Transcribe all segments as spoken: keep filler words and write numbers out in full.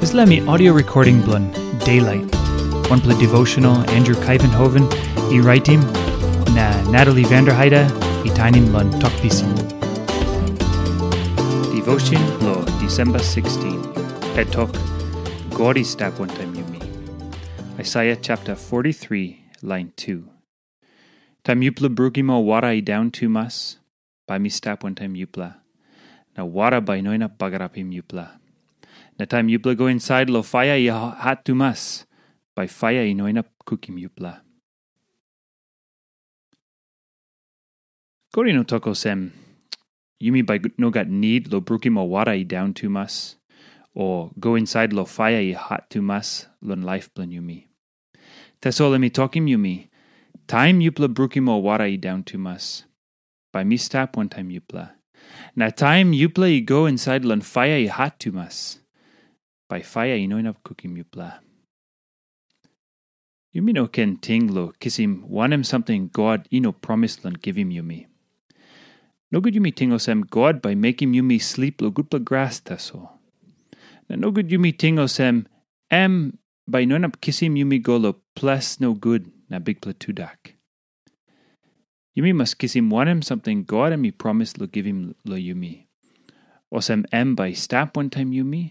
Dispela mi audio recording bilong Daylight, wanpela devotional Andrew Kaivenhoven i raitim, na Natalie Vanderheide i tainim long Tok Pisin. Devotion lo December sixteen. Het tok, God i stap wantaim yumi. Isaiah chapter forty-three, line two. Taim yupela brukim ol wara i daun tumas, bai mi stap wantaim yupela, na wara bai i no inap bagarapim yupela. Na taim yupela go insait lo faia i hat tumas, bai faia i no inap kukim yupela. God i no tok olsem, yumi bai no gat nid lo brukim ol wara i daun tumas, o go insait lo faia i hat tumas long laip bilong yumi. Tasol em i tokim yumi, taim yupela brukim ol wara i daun tumas, bai mi stap wantaim yupela. Na taim yupela i go insait long faia i hat tumas, bai faia i no inap kukim yupela. Yumi no ken ting lo kisim wanem samting God i no promis long givim yumi. Nogut yumi ting olsem God bai mekim yumi slip lo gutpela gras tasol. Na nogut yumi ting olsem em bai i no inap kisim yumi go lo ples nogut na bikpela tudak. Yumi mas kisim wanem samting God em i promis lo givim lo yumi. Olsem em bai i stap wantaim yumi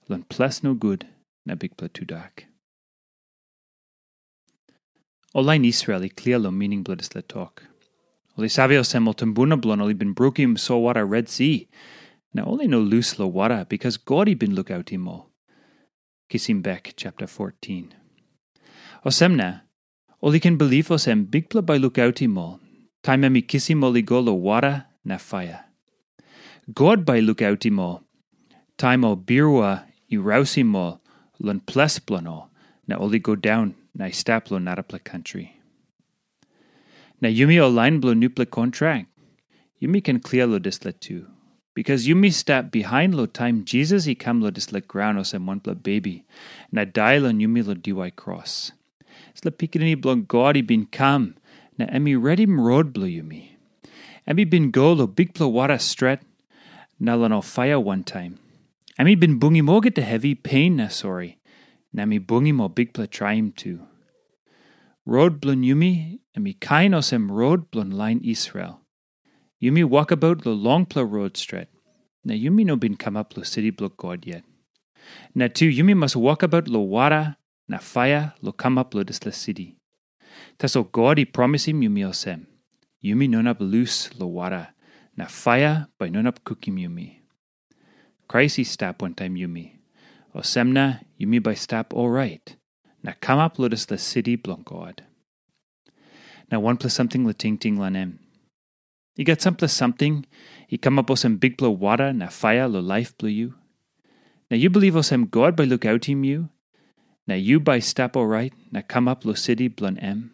long ples nogut na bikpela tudak. Ol lain Israel i klia long mining bilong dispela tok. Ol i save olsem ol tumbuna bilong ol i bin brukim solwara Red Si, na ol i no lus long wara bikas God i bin lukautim ol. Kisim bek chapter fourteen. Olsem na, ol i ken bilip olsem Bikpela bai lukautim ol, taim em i kisim ol i go long wara na faia. God bai i lukautim ol, taim ol birua i rausim ol long ples bilong ol, na ol i go daun na i stap long narapela kantri. Na yumi ol lain bilong nupela kontrak, yumi ken klia long dispela tu. Bikas yumi stap bihain long taim Jisas i kam long dispela graun olsem wanpela bebi, na dai long yumi long diwai kros. Dispela Pikinini bilong God i bin kam, na em i redim rot bilong yumi. Em i bin go long bikpela wara stret, na long ol faia wantaim. Em i bin bungim olgeta hevi, pein na sori, na em i bungim ol bikpela traim tu. Rot bilong yumi, em i kain olsem rot bilong lain Israel. Yumi wokabaut long longpela rot stret, na yumi no bin kamap long siti bilong God yet. Na tu yumi mas wokabaut long wara na faia long kamap long dispela siti. Tasol God i promisim yumi olsem, yumi no inap lus long wara, na faia bai no inap kukim yumi. Krais i stap wantaim yumi. Olsem na yumi bai stap orait, na kamap long dispela siti bilong God. Na wanpela samting long tingting long em. I gat sampela samting i kamap olsem bikpela wara na faia long laip bilong yu. Na yu bilip olsem God bai lukautim yu, na yu bai stap orait na kamap long siti bilong em.